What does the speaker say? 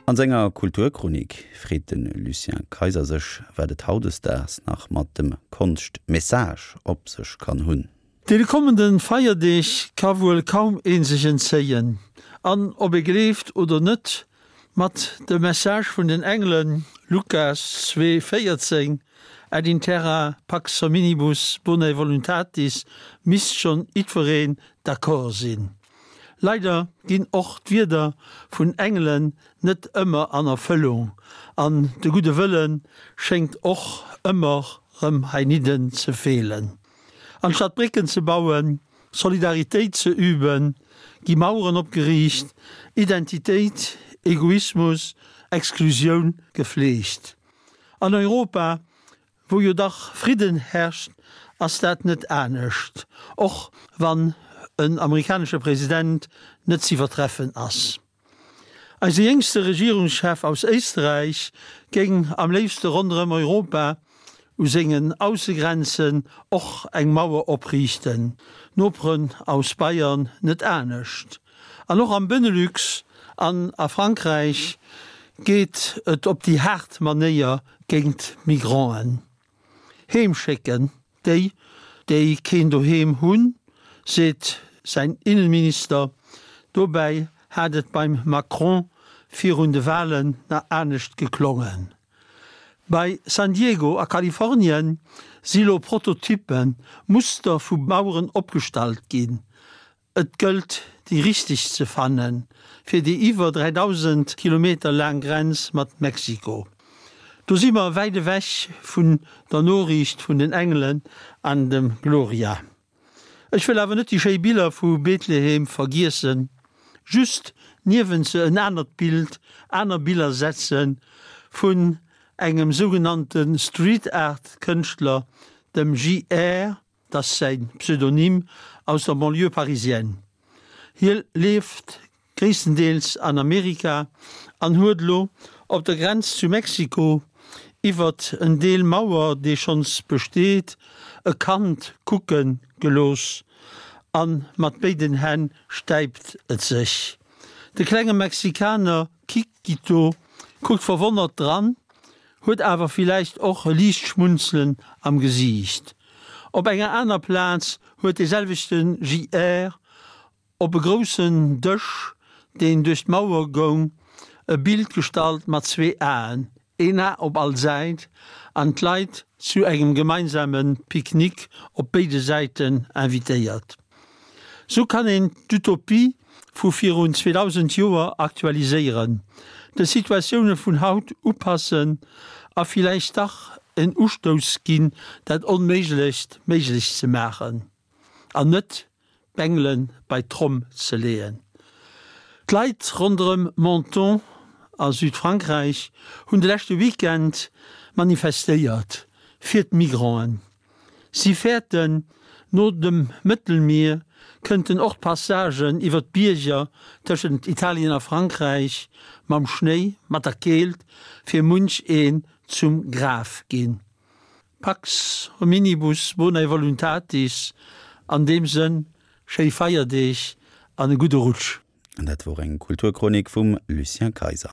An senger Kulturchronik freet de Lucien Kayser sech, wat et hautdesdaags nach mat dem Konscht-Message op sech kann hunn. Deene kommende Feierdeeg ka wuel kaum ee sech entzéien. An ob ee gleeft oder net, mat dem Message vun den Engelen, Lukas 2, 14, Et in terra pax hominibus bonae voluntatis, misst schonn jiddwereen d'accord sinn. Leider ginn och d'Wierder vun Engelen net ëmmer an Erfëllung an de gudde Wëlle schéngt och ëmmer rëm heinidden ze feelen. Anstatt Brécken ze bauen, Solidaritéit ze üben, gi Maueren opgeriicht, Identitéit, Egoismus, Exklusioun gefleegt. An Europa Wou jo dach Fridden herrscht, ass dat net anescht, och wann en amerikanesche President net z'iwwertreffen ass. Eise jéngste Regierungschef aus Éisträich géing am léifste ronderëm Europa u sengen Aussegrenzen och eng Mauer opriichten, d'Noperen aus Bayern net anescht. An och am Benelux an a Frankräich geet et op déi haart Manéier géint d'Migranten. Heem schécken déi, déi keen Doheem hunn, seet säin Innenminister. Dobäi hat et beim Macron virun de Walen nach anescht geklongen. Bei San Diego a Kalifornien si lo Prototyppen, Muster vu Maueren opgestallt ginn. Et gëllt déi richteg ze fanne fir déi iwwer 3.000 Kilometer laang Grenz mat Mexiko. Do si mer wäit ewech vun der Noriicht vun den Engelen an dem Gloria. Ech wëll awer net déi schéi Biller vu Bethlehem vergiessen, just niewent se en anert Bild, aner Biller setze vun engem sougenannte Street Art Kënschtler, dem JR. 't ass säi Pseudonym, aus der Banlieue parisienne. Hie lieft gréisstendeels an Amerika an huet elo op der Grenz zu Mexiko iwwert en Deel Mauer, dee schonns besteet, e Kand kucke gelooss a mat béiden Hänn stäipt et sech. De klenge Mexikaner Chiquito kuckt verwonnert dran huet awer villäicht och e liicht Schmunzelen am Gesiicht. Op enger aner Plaz huet dee selwechte JR op e groussen Dësch, deen duerch d'Mauer goung, e Bild gestallt mat zwee Aen, een A op all Säit, an d'Leit zu engem gemeinsame Picknick op béide Säiten invitéiert. Sou kann een d'Utopie vu virun 2000 Joer aktualiséieren, de Situatioune vun haut upassen a villäicht dach en Ustouss ginn, dat Onméiglecht méiglech ze maachen an net d'Bengele bei d'Tromm ze leeën. D'Leit ronderëm Menton a Südfrankräich hunn de leschte Weekend manifestéiert fir d'Migranten. Si fäerten, no dem Mëttelmier kënnten och d'Passagen iwwer d'Bierger tëschent Italien a Frankräich mam Schnéi, mat der Keelt, fir munch een zum Graf ginn. Pax hominibus bonae voluntatis, an deem Sënn, schéi Feierdeeg an e gudde Rutsch! An dat wor eng Kulturchronik vum Lucien Kayser.